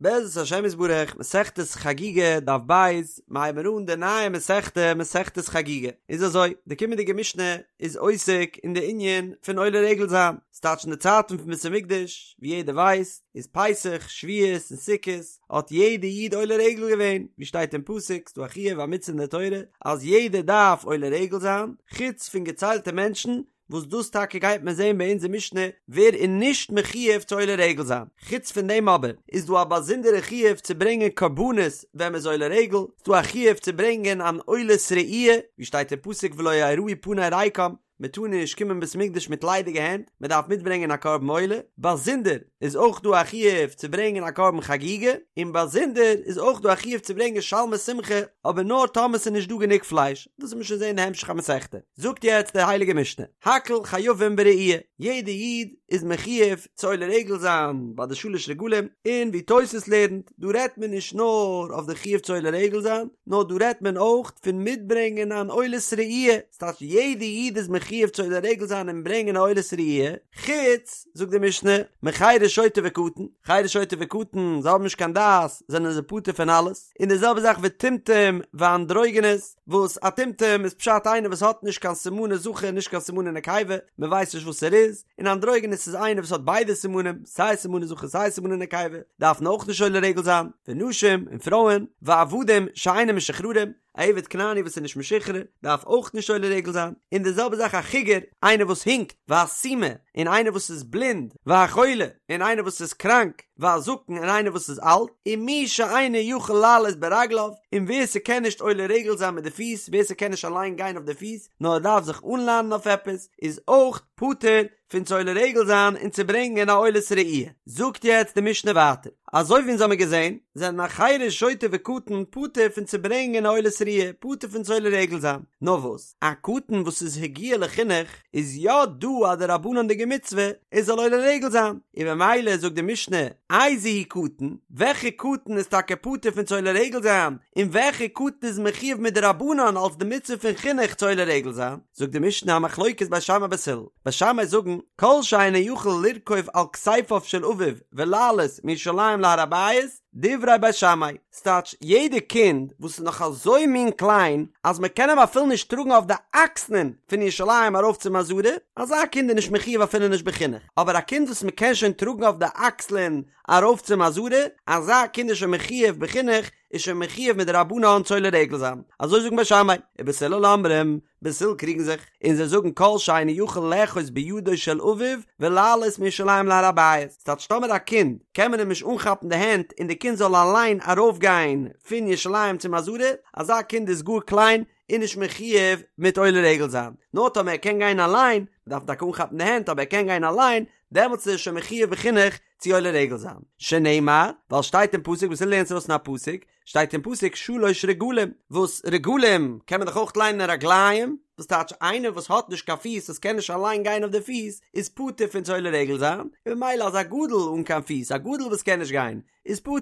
בעזרת השם יתברך, מסכת חגיגה, דף ב', מיר הייבן אן די נייע מסכתא, מסכת חגיגה. איז אזוי, די קומענדיגע משנה איז עוסק אין די ענין פון עולה רגל זיין. ס'טייטש אין די צייטן פון בית המקדש, ווי יעדער ווייסט, איז פסח, שבועות און סוכות, האט יעדע איד עולה רגל געווען, ווי שטייט אין פסוק, ס'דא א חיוב א מצוה אין די תורה, אז יעדער דארף עולה רגל זיין, חוץ פון געציילטע מענטשן, וואס דאס טאקע גייט מען זען ביי אונזער משנה ווער איז נישט מחויב צו עולה רגל זיין, חוץ פון דעם אבער איז דא א באזונדערע חיוב צו ברענגען קרבנות ווען מען איז עולה רגל, ס'דא א חיוב צו ברענגען אן עולת ראי', ווי שטייט אין פסוק ולא יראו פני ריקם, מען טאר נישט קומען בית מקדש מיט ליידיגע הענט, מען דארף מיטברענגען א קרבן עולה, באזונדער איז אויך דא א חיוב צו ברענגען א קרבן חגיגה, און באזונדער איז אויך דא א חיוב צו ברענגען שלמי שמחה, אבער נאר טאמער ס'איז נישט דא גענוג פלייש, דאס וועט מען שוין זען אין די המשך המסכתא. זאגט יעצט די הייליגע משנה, הכל חייבים בראי', יעדע איד איז מחויב צו עולה רגל זיין ביי די שלש רגלים, און ווי תוס' לערנט, דא רעדט מען נישט נאר אויף די חיוב צו עולה רגל זיין, נאר דא רעדט מען אויך פון מיטברענגען אן עולת ראי', ס'טייטש יעדע איד איז מחויב צו עולה רגל זיין און ברענגען א עולת ראי', חוץ, זאגט די משנה, מחרש שוטה וקטן, חרש שוטה וקטן, זיי האבן נישט קיין דעת, זענען זיי פטור פון אלעס, און די זעלבע זאך וטומטום ואנדרוגינוס, וואס א טומטום איז פשט איינער וואס האט נישט קיין סימני זכר נישט קיין סימני נקבה, מען ווייסט נישט וואס ער איז, און אנדרוגינוס איז איינער וואס האט ביידע סימנים, סיי סימני זכר סיי סימני נקבה, דארפן אויך נישט עולה רגל זיין, ונשים, און פרויען, ועבדים שאינם משוחררים, א עבד כנעני וואס איז נישט משוחרר דארף אויך נישט עולה רגל זיין, און די זעלבע זאך א חיגר, איינער וואס הינקט, והסומא, און איינער וואס איז בלינד, והחולה, און איינער וואס איז קראנק, והזקן, און איינער וואס איז אלט, ומי שאינו יכול לעלות ברגליו, און ווער ס'קען נישט עולה רגל זיין מיט די פיס, ווער ס'קען נישט אליין גיין אויף די פיס, נאר ער דארף זיך אנלאנען אויף עפעס, איז אויך פטור פון צו עולה רגל זיין און צו ברענגען א עולת ראי'. זאגט יעצט די משנה ווייטער, אזוי ווי אונז האמיר געזען, זענען א חרש שוטה וקטן פטור פון צו ברענגען א עולת ראי', פטור פון צו עולה רגל זיין. נאר וואס, א קטן וואס איז הגיע לחינוך, איז יא דא א דרבנן'דיגע מצוה ער זאל עולה רגל זיין, און במילא זאגט די משנה, איזהו קטן, וועלכע קטן איז טאקע פטור פון צו עולה רגל זיין, און וועלכע קטן איז מחויב מדרבנן אלס די מצוה פון חינוך צו עולה רגל זיין? זאגט די משנה א מחלוקת בית שמאי בית הלל, בית שמאי זאגן, כל שאינו יכול לרכוב על כתפיו של אביו ולעלות מירושלים להר הבית, דברי בית שמאי, ס'טייטש יעדע קינד וואס איז נאך אזוי מין קליין אז מען קען אים אפילו נישט טראגן אויף די אקסלען פון ירושלים ארויף צום עזרה, אזא קינד איז נישט מחויב אפילו נישט בחינוך, אבער א קינד וואס מען קען שוין טראגן אויף די אקסלען ארויף צום עזרה, אזא קינד איז שוין מחויב בחינוך, איז שוין מחויב מדרבנן צו עולה רגל זיין, אזוי זאגן בית שמאי, ובית הלל אומרים, בית הלל קריגן זיך, און זיי זאגן כל שאינו יכול לאחוז בידו של אביו ולעלות מירושלים להר הבית, ס'טייטש טאמער א קינד קען מען אים נישט אנכאפן די הענט און די קינד זאל אליין ארויפגיין פון ירושלים צום עזרה, אזא קינד איז גאר קליין און נישט מחויב מיט עולה רגל זיין, נאר טאמער ער קען גיין אליין, מ'דארף טאקע אנכאפן די הענט אבער ער קען גיין אליין, דעמאלטס איז ער שוין מחויב בחינוך צו עולה רגל זיין, שנאמר, ווייל שטייט אין פסוק בית הלל לערנט ארויס פון א פסוק, שטייט אין פסוק שלש רגלים, וואס רגלים קען מען דאך אויך ליינען רגליים, וואס טייטש איינער וואס האט נישט קיין פיס וואס קען נישט אליין גיין אויף די פיס איז פטור פון צו עולה רגל זיין, און ממילא אז א גדול אן קיין פיס, א גדול וואס קען נישט גיין, איז פטור,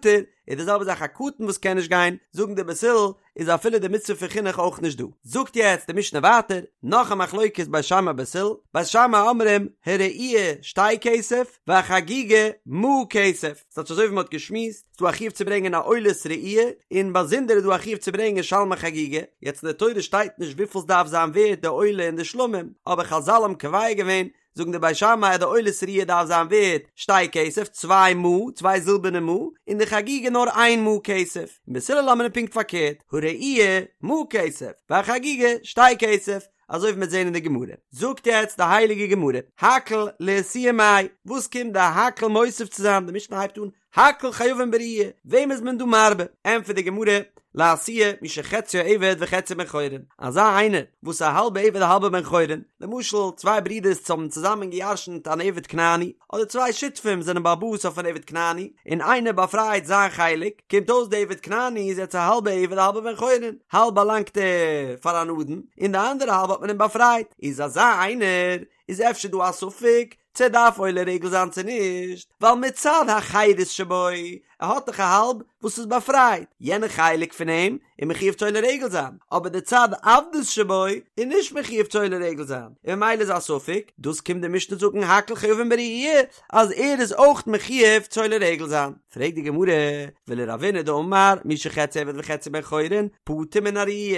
איז די זעלבע זאך א קטן וואס קען נישט גיין, זאגן די בית הלל, איז אפילו די מצוה פון חינוך אויך נישט דא. זאגט יעצט די משנה ווייטער, נאך א מחלוקת בית שמאי בית הלל, בית שמאי אומרים הראי' שתי כסף והחגיגה מעה כסף, ס'טייטש אזוי ווי מ'האט געשמועסט, ס'דא א חיוב צו ברענגען א עולת ראי', און באזונדער איז דא א חיוב צו ברענגען שלמי חגיגה, יעצט אין די תורה שטייט נישט וויפיל ס'דארף זיין ווערט די עולה און די שלמים, אבער חזל האבן קובע געווען זאגן די בית שמאי אז די עולת ראי' דארף זיין ווערט שתי כסף, צוויי מעה, צוויי זילבערנע מעה, און די חגיגה נאר איין מעה כסף, און בית הלל אומרים פונקט פארקערט, הראי' מעה כסף, והחגיגה שתי כסף, אזוי ווי מ'וועט זען אין די גמרא. זאגט יעצט די הייליגע גמרא, הכל לאתויי מאי, וואס קומט די הכל מוסיף צו זיין, די משנה הייבט אן, הכל חייבין בראי', וועם איז מען דא מרבה? ענטפערט די גמרא, לאתויי מי שחציו עבד וחציו בן חורין, אזא איינער וואס א האלבע עבד א האלבע בן חורין, למשל צוויי ברידערס האבן צוזאמען געירשנט אן עבד כנעני, אדער צוויי שותפים זענען בעל הבית אויף אן עבד כנעני, און איינער באפרייט זיין חלק, קומט אויס די עבד כנעני איז יעצט א האלבע עבד א האלבע בן חורין, האלב באלאנגט ער פאר אן אדון, און די אנדערע האלב האט מען אים באפרייט, איז אזא איינער איז אפשר דא א ספק? צו ער דארף עולה רגל זיין צו נישט, ווייל מצד החירות שבו, ער האט דאך א האלב וואס איז באפרייט, יענע חלק פון אים איז מחויב צו עולה רגל זיין, אבער די צד עבדות שבו איז נישט מחויב צו עולה רגל זיין, און ממילא איז א ספק, דאס קומט די משנה זאגן הכל חייבין בראי' אז ער איז אויך מחויב צו עולה רגל זיין. פרעגט די גמרא, ולרבינא דאמר מי שחציו עבד וחציו בן חורין, פטור מן הראי',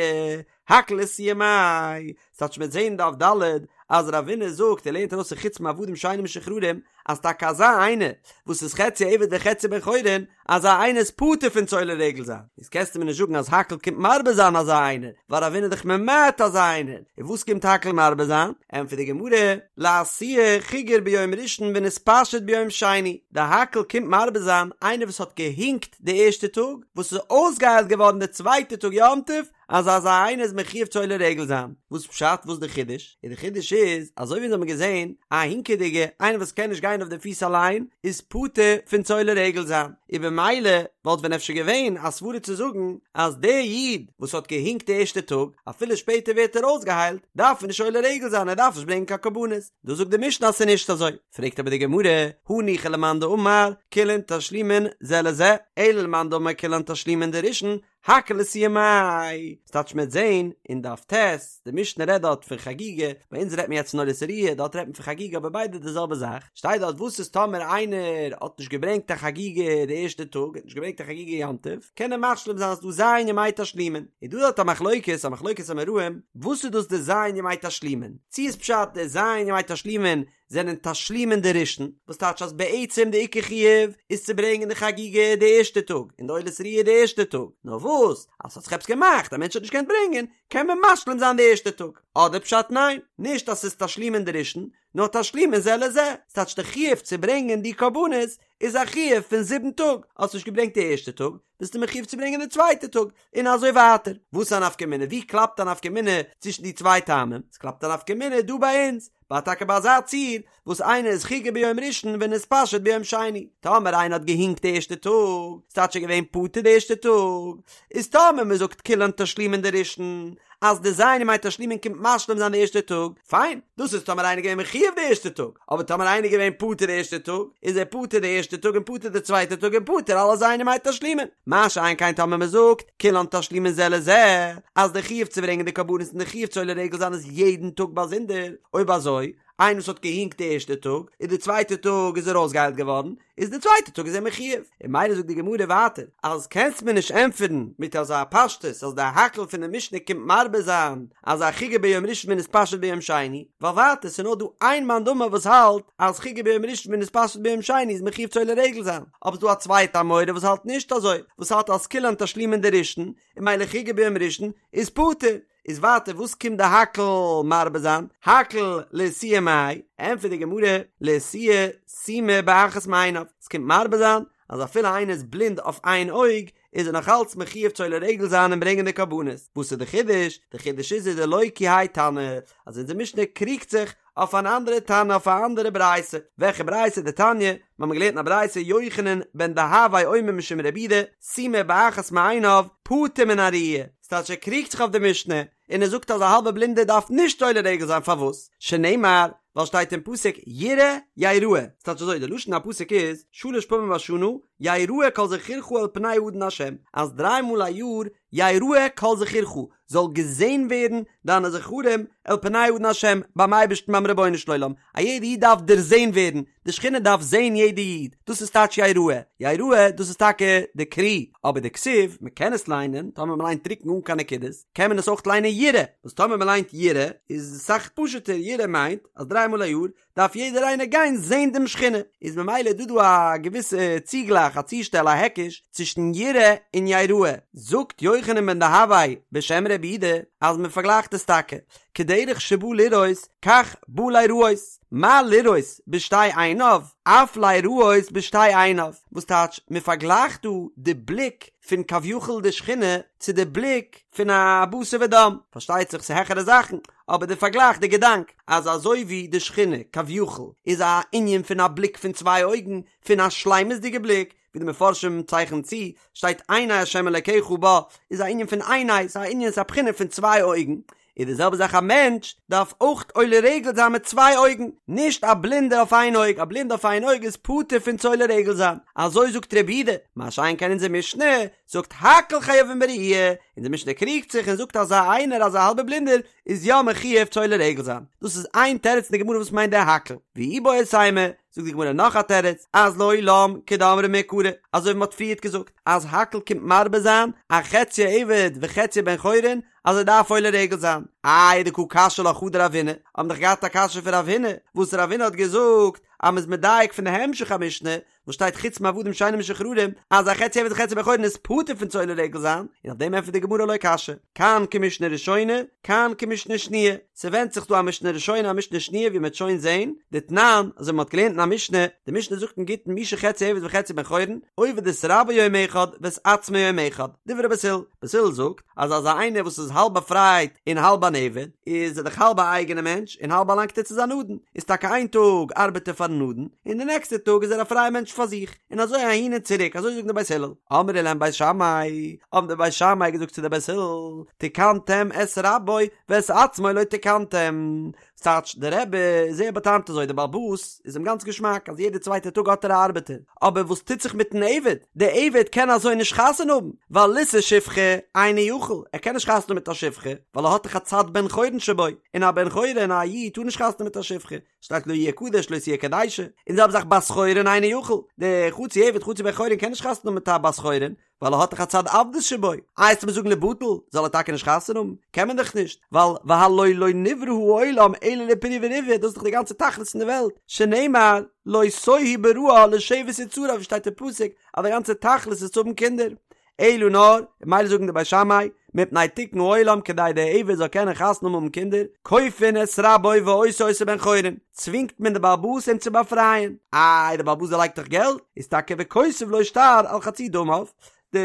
הכל לאתויי מאי, ס'טייטש מ'וועט זעהן דף ד' אז רבינא זאגט ער לערנט ארויס פון חוץ מעבדים שאינם משוחררים אז טאקע אזא איינער וואס איז חצי עבד וחצי בן חורין אזא איינער איז פטור פון צו עולה רגל זיין איז קענסטו מיר נישט זאגן אז הכל קומט מרבה זיין אזא איינער ווייל רבינא איז דאך ממעט אזא איינער און וואס קומט הכל מרבה זיין? ענטפערט די גמרא לאתויי חיגר ביום ראשון ונתפשט ביום שני די הכל קומט מרבה זיין איינער וואס האט געהינקט די ערשטע טאג וואס איז אויסגעהיילט געווארן די צווייטע טאג יום טוב אז אזא איינער איז מחויב צו עולה רגל זיין, וואס פשט וואס די חידוש? און די חידוש איז, אזוי ווי אונז האבן געזען, א הינקעדיגע, איינער וואס קען נישט גיין אויף די פיס אליין, איז פטור פון צו עולה רגל זיין, און במילא וואלט ווען אפשר געווען א סברה צו זאגן אז דער איד וואס האט געהינקט די ערשטע טאג, אפילו שפעטער ווערט ער אויסגעהיילט, דארף ער נישט עולה רגל זיין, ער דארף נישט ברענגען קיין קרבנות. דא זאגט די משנה אז ס'איז נישט אזוי. פרעגט אבער די גמרא, הניחא למאן דאמר כולן תשלומין זה לזה, אלא למאן דאמר כולן תשלומין דראשון, הכל לאתויי מאי, ס'טייטש מ'עט זעהן אין דף ט', די משנה רעדט דארט פון חגיגה, ביי אונז רעדט מען יעצט פון עולת ראיה, דארט רעדט מען פון חגיגה אבער ביידע די זעלבע זאך, שטייט דארט וואס איז טאמער איינער האט נישט געברענגט א חגיגה די ערשטע טאג, האט נישט געברענגט א חגיגה יום טוב, קען ער משלים זיין אז ס'דא ז' ימי תשלומין, איז דא דארט א מחלוקת, א מחלוקת אמוראים, וואס איז דאס די ז' ימי תשלומין, צו איז פשט די ז' ימי תשלומין זענען תשלומין דראשון, וואס טייטש אז בעצם די עיקר חיוב איז צו ברענגען די חגיגה די ערשטע טאג און די עולת ראיה די ערשטע טאג, נאר וואס אז ס'האט זיך עפעס געמאכט א מענטש האט נישט געקענט ברענגען קען מען משלים זיין די ערשטע טאג, אדער פשט ניין, נישט אז ס'איז תשלומין דראשון, נאר תשלומין זה לזה, ס'טייטש די חיוב צו ברענגען די קרבנות איז א חיוב פון זיבן טאג, האסט נישט געברענגט די ערשטע טאג, ביסטו מחויב צו ברענגען די צווייטע טאג, און אזוי ווייטער. וואס איז א נפקא מינה? ווי קלאפט א נפקא מינה צווישן די צוויי טעמים? עס קלאפט א נפקא מינה דא ביי אונז, ביי טאקע ביי אזא ציור, וואס איינער איז חיגר ביום ראשון ונתפשט ביום שני. טאמער איינער האט געהינקט די ערשטע טאג, ס'טייטש ער איז געווען פטור די ערשטע טאג, איז טאמער מען זאגט כולן תשלומין דראשון, אז די ז' ימי תשלומין קומט משלים זיין די ערשטע טאג, פיין, דאס איז טאמער איינער געווען מחויב די ערשטע טאג, אבער טאמער איינער געווען פטור די ערשטע טאג, איז ער פטור די ערשטע טאג און פטור די צווייטע טאג און פטור אלע ז' ימי תשלומין. מה שאין כן טאמער מען זאגט, כולן תשלומין זה לזה, אז די חיוב צו ברענגען די קרבנות און די חיוב צו עולה רגל זיין איז יעדן טאג באזונדער, אויב אזוי, איינער וואס האט געהינקט די ערשטע טאג, און די צווייטע טאג איז ער אויסגעהיילט געווארן, איז די צווייטע טאג איז ער מחויב, און ממילא זאגט די גמרא ווייטער אז קענסט מיר נישט ענטפערן מיט אזא פשטות אז די הכל פון די משנה קומט מרבה זיין אז א חיגר ביום ראשון ונתפשט ביום שני, ווייל ווייטער ס'איז נאר דא איין מאן דאמר וואס האלט אז חיגר ביום ראשון ונתפשט ביום שני איז מחויב צו עולה רגל זיין, אבער ס'דא א צווייטע אמורא וואס האלט נישט אזוי, וואס האלט אז כולן תשלומין דראשון, און ממילא חיגר ביום ראשון איז פטור. איז ווייטער וואס קומט די הכל מרבה זיין? הכל לאתויי מאי? ענטפערט די גמרא, לאתויי סומא באחת מעיניו, עס קומט מרבה זיין אז אפילו איינער איז בלינד אויף איין אויג איז ער נאך אלץ מחויב צו עולה רגל זיין און ברענגען די קרבנות, וואס איז די חידוש? די חידוש איז איז דלא כי האי תנא, אז אונזער משנה קריגט זיך אויף אן אנדערע תנא אויף א אנדערע ברייתא, וועלכע ברייתא? דתניא, מיר האבן געלערנט אין א ברייתא יוחנן בן דהבאי אומר משום רבי יהודה, סומא באחת מעיניו, פטור מן הראייה, ס'טייטש ער קריגט זיך אויף די משנה, און ער זאגט אז א האלבע בלינדער דארף נישט עולה רגל זיין פארוואס? שנאמר, ווייל שטייט אין פסוק יראה יראה, ס'טייטש אזוי די לשון הפסוק איז שלש פעמים בשנה יראה כל זכורך אל פני האדון השם, אז דריי מאל א יאר יראה כל זכורך, זאל געזען ווערן דיינע זכרים אל פני האדון השם, ביים אייבערשטן ביים רבונו של עולם, א יעדע איד דארף דערזען ווערן, די שכינה דארף זען יעדע איד, דאס איז טייטש יראה, יראה דאס איז טאקע די קרי, אבער די כתיב, מען קען עס ליינען, טאמער מען ליינט טרוקן אן קיין נקודות, קען מען עס אויך ליינען יראה, וואס טאמער מען ליינט יראה איז אסאך פשוט'ער, יראה מיינט אז דריי מאל א יאר דארף יעדער איינער גיין זען דעם שכינה, איז ממילא דא דא א געוויסע צוגלייך א צושטעל א היקש צווישן יראה און יראה, זאגט יוחנן בן דהבאי בשם רבי יהודה אז מען פארגלייכט עס טאקע, כדרך שבא לראות כך בא ליראות, מה לראות בשתי עיניו אף ליראות בשתי עיניו, וואס טייטש מען פארגלייכט דא די בליק פון כביכול די שכינה צו די בליק פון א בשר ודם, פארשטייט זיך ס'איז העכערע זאכן, אבער די פארגלייך די געדאנק אז אזוי ווי די שכינה כביכול איז א ענין פון א בליק פון צוויי אויגן, פון א שלימות'דיגע בליק, ווי די מפרשים צייכענען צו, שטייט עיני ה' אלקיך בה, איז א ענין פון עיני, ס'איז א ענין ס'איז א בחינה פון צוויי אויגן, איז די זעלבע זאך א מענטש דארף אויך עולה רגל זיין מיט צוויי אויגן, נישט א בלינדער אויף איין אויג, א בלינדער אויף איין אויג איז פטור פון צו עולה רגל זיין, אזוי זאגט רבי יהודה, מה שאין כן אונזער משנה זאגט הכל חייבים בראייה, אונזער משנה קריגט זיך און זאגט אזא איינער אזא האלבער בלינדער איז יא מחויב צו עולה רגל זיין, דאס איז איין תירוץ אין די גמרא וואס מיינט דער הכל, ואיבעית אימא, זאגט די גמרא נאך א תירוץ, אז לעולם כדאמרי מעיקרא, אזוי ווי מען האט פריערט געזאגט אז הכל קומט מרבה זיין א חציו עבד וחציו בן חורין אז ער דארף עולה רגל זיין, איי דקא קשיא לך הא דרב הונא, האבן דאך געהאט א קשיא פון רב הונא, וואס רב הונא האט געזאגט אז מען איז מדייק פון די המשך המשנה, וואס שטייט חוץ מעבדים שאינם משוחררים, אז א חצי עבד וחצי בן חורין איז פטור פון צו עולה רגל זיין, און אויף דעם ענטפערט די גמרא לא קשיא, כאן כמשנה ראשונה, כאן כמשנה שניה, ס'ווענדט זיך דא א משנה ראשונה א משנה שניה ווי מ'וועט שוין זעהן, דתנן, אזוי ווי מ'האט געלערנט אין א משנה, די משנה זאגט אין גיטין מי שחציו עבד וחציו בן חורין, עובד את רבו יום אחד ואת עצמו יום אחד, דברי בית הלל, בית הלל זאגט אז אזא איינער וואס איז האלב באפרייט און האלב אן עבד, איז ער דאך האלב א אייגענע מענטש און האלב באלאנגט ער צו זיין אדון, איז טאקע איין טאג ארבעט ער פארן אדון, און די נעקסטע טאג איז ער א פרייע מענטש פאר זיך, און אזוי אהין און צוריק, אזוי זאגן די בית הלל. אמרו להם בית שמאי, האבן די בית שמאי געזאגט צו די בית הלל, תיקנתם את רבו ואת עצמו לא תיקנתם, ס'טייטש, דער רבי איז זייער באטעמט אזוי, דער בעל הבית איז אים גאנץ געשמאק אז יעדע צווייטע טאג האט ער א ארבעטער, אבער וואס טוט זיך מיטן עבד? דער עבד קען אזוי נישט חתונה האבן, ווייל לישא שפחה אינו יכול, ער קען נישט חתונה האבן מיט א שפחה, ווייל ער האט דאך א צד בן חורין שבו, און א בן חורין א איד טאר נישט חתונה האבן מיט א שפחה, שטייט לא יהיה קדש לא תהיה קדשה, און די זעלבע זאך בת חורין אינו יכול, דער חצי עבד חצי בן חורין קען נישט חתונה האבן מיט א בת חורין, ווייל ער האט דאך א צד עבדות שבו, איי וועסטו מיר זאגן ליבטל, זאל ער טאקע נישט חתונה האבן? קען מען דאך נישט, ווייל והלא לא נברא העולם אלא לפריה ורביה, דאס איז דאך די גאנצע תכלית פון די וועלט, שנאמר לא תוהו בראה לשבת יצרה ווי שטייט אין פסוק אז די גאנצע תכלית איז צו האבן קינדער, אלא נאר, ממילא זאגן די בית שמאי, מפני תיקון העולם כדי דער עבד זאל קענען חתונה האבן קינדער, כופין את רבו ועושה אותו בן חורין, צווינגט מען די בעל הבית אים צו באפרייען, איי די בעל הבית דערלייגט דאך געלט, איז טאקע וכותב לו שטר על חצי דמיו, די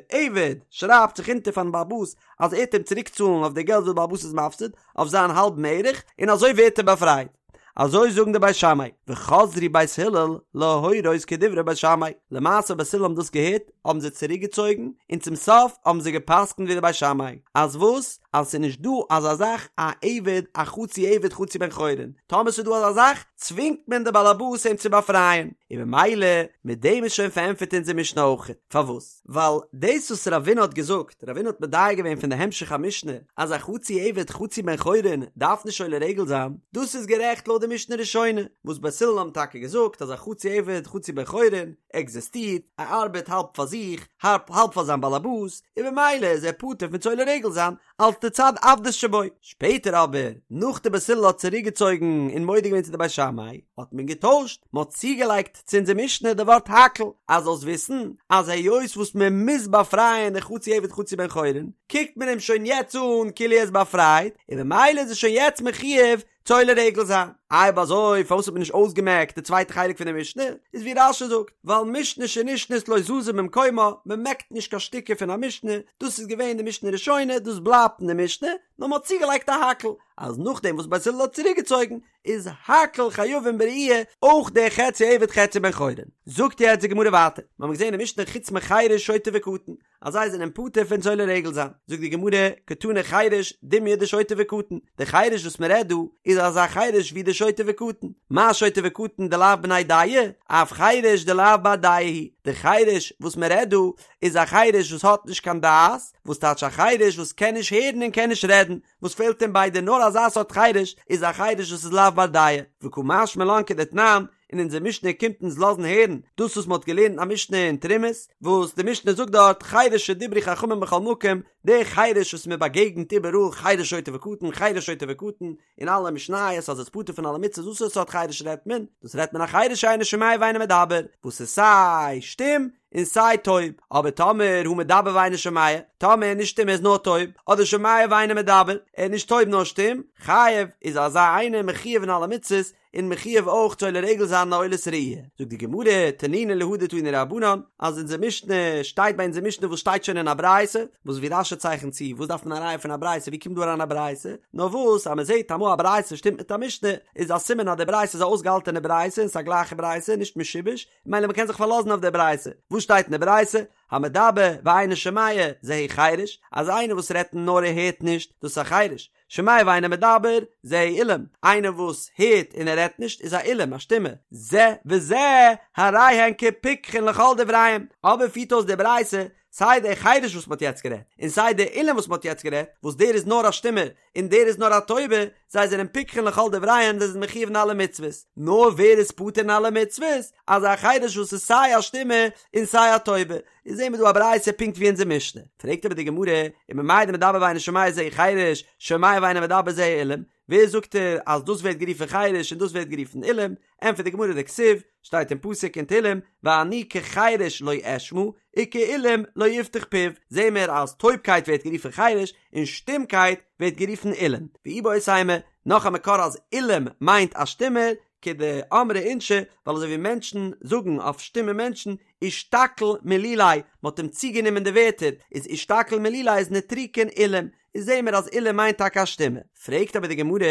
עבד שרייבט זיך אונטער פארן בעל הבית אז ער וועט אים צוריק צאלן אויף די געלט וואס די בעל הבית איז מפסיד, אויף זיין האלבן ערך, און אזוי ווערט ער באפרייט. אזוי זאגן די בית שמאי, וחזרו בית הלל להורות כדברי בית שמאי, למעשה בית הלל האבן דאס געהערט האבן זיי צוריק געצויגן, און צום סוף האבן זיי גע'פסק'נט ווי די בית שמאי, אז וואס? אז ס'איז נישט דא אזא זאך א עבד א חצי עבד חצי בן חורין, טאמער ס'איז דא אזא זאך צווינגט מען די בעלעבאס אים צו באפרייען, און במילא מיט דעם איז שוין פארענטפערט אונזער משנה אויך, פארוואס? ווייל דאס וואס רבינא האט געזאגט, רבינא האט מדייק געווען פון די המשך המשנה, אז א חצי עבד חצי בן חורין דארף נישט עולה רגל זיין, דאס איז גערעכט לויט די משנה ראשונה, וואס בית הלל האבן טאקע געזאגט אז א חצי עבד חצי בן חורין עקזיסטירט, ער ארבעט האלב פאר זיך, האלב פאר זיין באלעבאס, און במילא איז ער פטור פון צו עולה רגל זיין, אלס די צד עבדות שבו. שפעטער אבער, נאך די בית הלל האט צוריקגעצויגן און מודה געווען צו די בית שמאי, האט מען געטוישט, מען האט צוגעלייגט צו אונזער משנה די ווארט הכל, אז זאלסט וויסן אז היות וואס מען מוז באפרייען די חצי עבד חצי בן חורין, קוקט מען אים שוין יעצט אן כאילו ער איז באפרייט, און ממילא איז ער שוין יעצט מחויב צו עולה רגל זיין. אויב אזוי פארוואס האט מען נישט אויסגעמעקט די צווייטע חלק פון די משנה? איז ווי רש"י זאגט, ווייל משנה שנשנית לא זזה ממקומה, מען מעקט נישט קיין שטיקער פון א משנה, דאס איז געווען די משנה ראשונה, דאס בלייבט אין די משנה, נאר מען האט צוגעלייגט א הכל, אז נאכדעם וואס בית הלל האט צוריקגעצויגן, איז הכל חייבים בראייה, אויך דער חצי עבד חצי בן חורין. זאגט יעצט די גמרא ווייטער, מיר האבן געזען אין משנה חוץ מחרש שוטה וקטן, אז זיי זענען פטור פון צו עולה רגל זיין, זאגט די גמרא, קתני חרש דומיא דשוטה וקטן, די חרש וואס מען רעדט דא איז אזא חרש ווי די שוטה וקטן, מה שוטה וקטן דלאו בני דעה, אף חרש דלאו בר דעה הוא, די חרש וואס מען רעדט דא איז א חרש וואס האט נישט קיין דעת, וואס טייטש א חרש וואס קען נישט הערן און קען נישט רעדן, וואס פעלט אים ביידע נאר אזא סארט חרש איז א חרש וואס איז לאו בר דעה, וקא משמע לן כדתנן, און אונזער משנה קומט אונז לאזן הערן דאס וואס מען האט געלערנט א משנה אין תרומות, וואס די משנה זאגט דארט חרש שדברו חכמים בכל מקום, דער חרש וואס מען באגעגנט איבעראל חרש שוטה וקטן חרש שוטה וקטן, אין אלע משניות אז עס איז פטור פון אלע מצוות וואס סארט חרש רעדט מען? דאס רעדט מען א חרש שאינו שומע ואינו מדבר, וואס איז סיי שטום און סיי טויב, אבער טאמער הא מדבר ואינו שומע, טאמער ער איז נישט שטום ער איז נאר טויב, אדער שומע ואינו מדבר, ער איז נישט טויב נאר שטום, חייב, איז אזא איינער מחויב אין אלע מצוות, און מחויב אויך צו עולה רגל זיין אן עולת ראי'. זאגט די גמרא, תנינא להא דתנו רבנן, אז אונזער משנה שטייט ביי אונזער משנה וואס שטייט שוין אין א ברייתא, וואס ווי רש"י צייכנט צו, וואס דארף מען א ראיה פון א ברייתא, ווי קומט דא אריין א ברייתא? נאר וואס אז מען זעט אמאל א ברייתא שטימט מיט א משנה, איז א סימן אז די ברייתא איז א אויסגעהאלטענע ברייתא און ס'איז א גלייכע ברייתא, נישט משובש, ממילא מען קען זיך פארלאזן אויף די ברייתא. וואס שטייט אין די ברייתא? המדבר ואינו שומע, זהו חרש, אז איינער וואס רעדט נאר ער הערט נישט, דאס איז א חרש. שומע ואינו מדבר, זהו אילם, איינער וואס הערט און ער רעדט נישט איז א אילם, א שטומע, זה וזה, הרי הן כפיקחין לכל דבריהם, אבער פירט אויס די ברייתא, סיי דער חירש וואס מ'האט יעצט גערעדט, און סיי דער אילם וואס מ'האט יעצט גערעדט, וואס דער איז נאר א שטומער, און דער איז נאר א טויבער, זיי זענען פיקחין לכל דבריהם, זיי זענען מחיוב אין אלע מצוות. נאר ווער איז פטור אין אלע מצוות? אזא חירש וואס איז סיי א שטומער און סיי א טויבער. איז זעהן מיר דא א ברייתא פונקט ווי אונזער משנה. פרעגט אבער די גמרא, וממאי דמדבר ואינו שומע זהו חירש, שומע ואינו מדבר זהו אילם, ווער זאגט ער אז דאס ווערט גערופן חירש און דאס ווערט גערופן אילם? ענטפערט די גמרא דכתיב, שטייט אין פסוק אין תהלים, ואני כחירש לא אשמע, וכאלם לא יפתח פיו, זעהן מיר אז טויבקייט ווערט גערופן חירש, און שטומקייט ווערט גערופן אילם. ואיבעית אימא, נאך א מקור אז אילם מיינט א שטומער, כדאמרי אינשי, ווייל אזוי ווי מענטשן זאגן אויף שטומע מענטשן, אישתקיל מלוליה, מען האט אים צוגענומען די ווערטער, איז אישתקיל מלוליה איז נוטריקון אילם, איז זעהן מיר אז אילם מיינט טאקע א שטומע. פרעגט אבער די גמרא,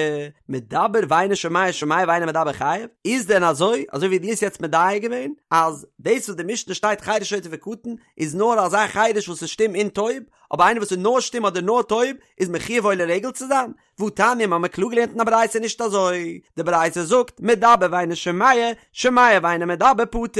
מדבר ואינו שומע שומע ואינו מדבר חייב? איז דען אזוי, אזוי ווי דו האסט יעצט מדייק געווען, אז דאס וואס די משנה שטייט חירש שוטה וקטן, איז נאר אזא חירש וואס איז שטום און טויב, אבער איינער וואס איז נאר שטום אדער נאר טויב, איז מחויב עולה רגל צו זיין? והתניא מ'האמיר קלאר געלערנט אין א ברייתא נישט אזוי, די ברייתא זאגט מדבר ואינו שומע, שומע ואינו מדבר פטור,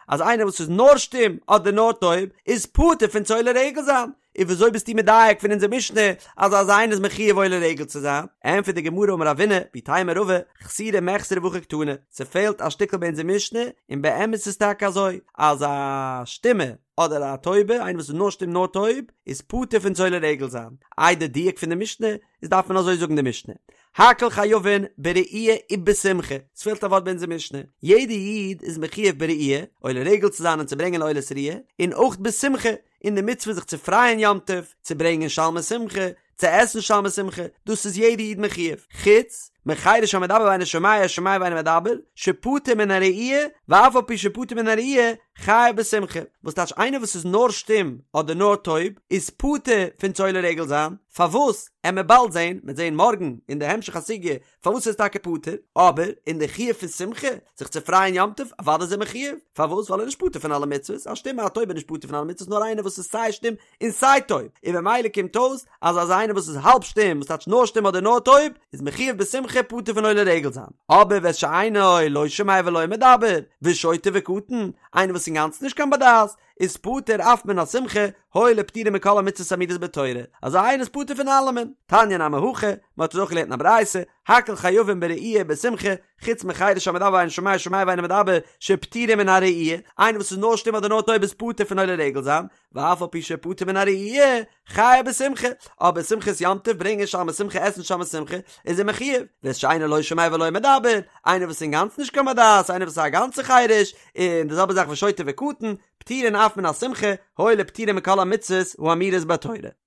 אז איינער וואס איז נאר שטום אדער נאר טויב איז פטור פון צו עולה רגל זיין, און וויאזוי ביסטו מדייק פון אונזער משנה אז אזא איינער איז מחויב עולה רגל צו זיין? ענטפערט די גמרא אמר רבינא ואיתימא רבא, חסורי מחסרא והכי קתני, ס'פעלט א שטיקל ביי אונזער משנה, און באמת איז טאקע אזוי אז א שטומע אדער א טויבע, איינער וואס איז נאר שטום נאר טויב, איז פטור פון צו עולה רגל זיין. איי די דיוק פון די משנה, איז דארף מען אזוי זאגן די משנה, הכל חייבין בראייה ובשמחה, ס'פעלט א ווארט ביי אונזער משנה, יעדע איד איז מחויב בראייה, עולה רגל צו זיין און צו ברענגען עולת ראייה, און אויך בשמחה, אין די מצוה זיך צו פרייען יום טוב, צו ברענגען שלמי שמחה, צו עסן שלמי שמחה, דאס איז יעדע איד מחויב, חוץ מחירש המדבר ואינו שומע שומע ואינו מדבר, שפטור מן הראייה, ואף על פי שפטור מן הראייה, חייב בשמחה, וואס טייטש איינער וואס איז נאר שטום אדער נאר טויב, איז פטור פון צו עולה רגל זיין, פארוואס? עמיר באלד זען, מ'עט זען מארגן אין די המשך הסוגיא פארוואס איז טאקע פטור, אבער אין די חיוב פון שמחה, זיך צו פרייען יום טוב, אוודאי איז ער מחויב, פארוואס? ווייל ער איז נישט פטור פון אלע מצוות, א שטומע א טויבע איז נישט פטור פון אלע מצוות נאר איינער וואס איז סיי שטום און סיי טויב, און במילא קומט אויס אז אזא איינער וואס איז האלב שטום, וואס טייטש נאר שטום אדער נאר טויב, איז מחויב בשמחה פטור פון עולה רגל זיין, אבער ואת שאינו לא שומע ולא מדבר, ושוטה וקטן, איינער וואס איז אינגאנצן נישט קיין בר דעת, איז פטור אף מן השמחה, הואיל ופטורין מכל המצוות האמורות בתורה, אזא איינער איז פטור פון אלעמען. תניא נמי הכי, מען האט עס אויך געלערנט אין א ברייתא, הכל חייבין בראייה ובשמחה, חוץ מחירש המדבר ואינו שומע שומע ואינו מדבר, שפטורין מן הראייה, איינער וואס איז נאר שטום אדער נאר טויב איז פטור פון עולה רגל זיין, ואף על פי שפטור מן הראייה, חייב בשמחה, אבער שמחת יום טוב ברענגען שלמי שמחה עסן שלמי שמחה, איז ער מחויב, ואת שאינו לא שומע ולא מדבר, איינער וואס איז אינגאנצן נישט קיין בר דעת, איינער וואס איז א גאנצע חירש, און די זעלבע זאך ושוטה וקטן, פטורין אף מן השמחה, הואיל ופטורין מכל המצוות האמורות בתורה.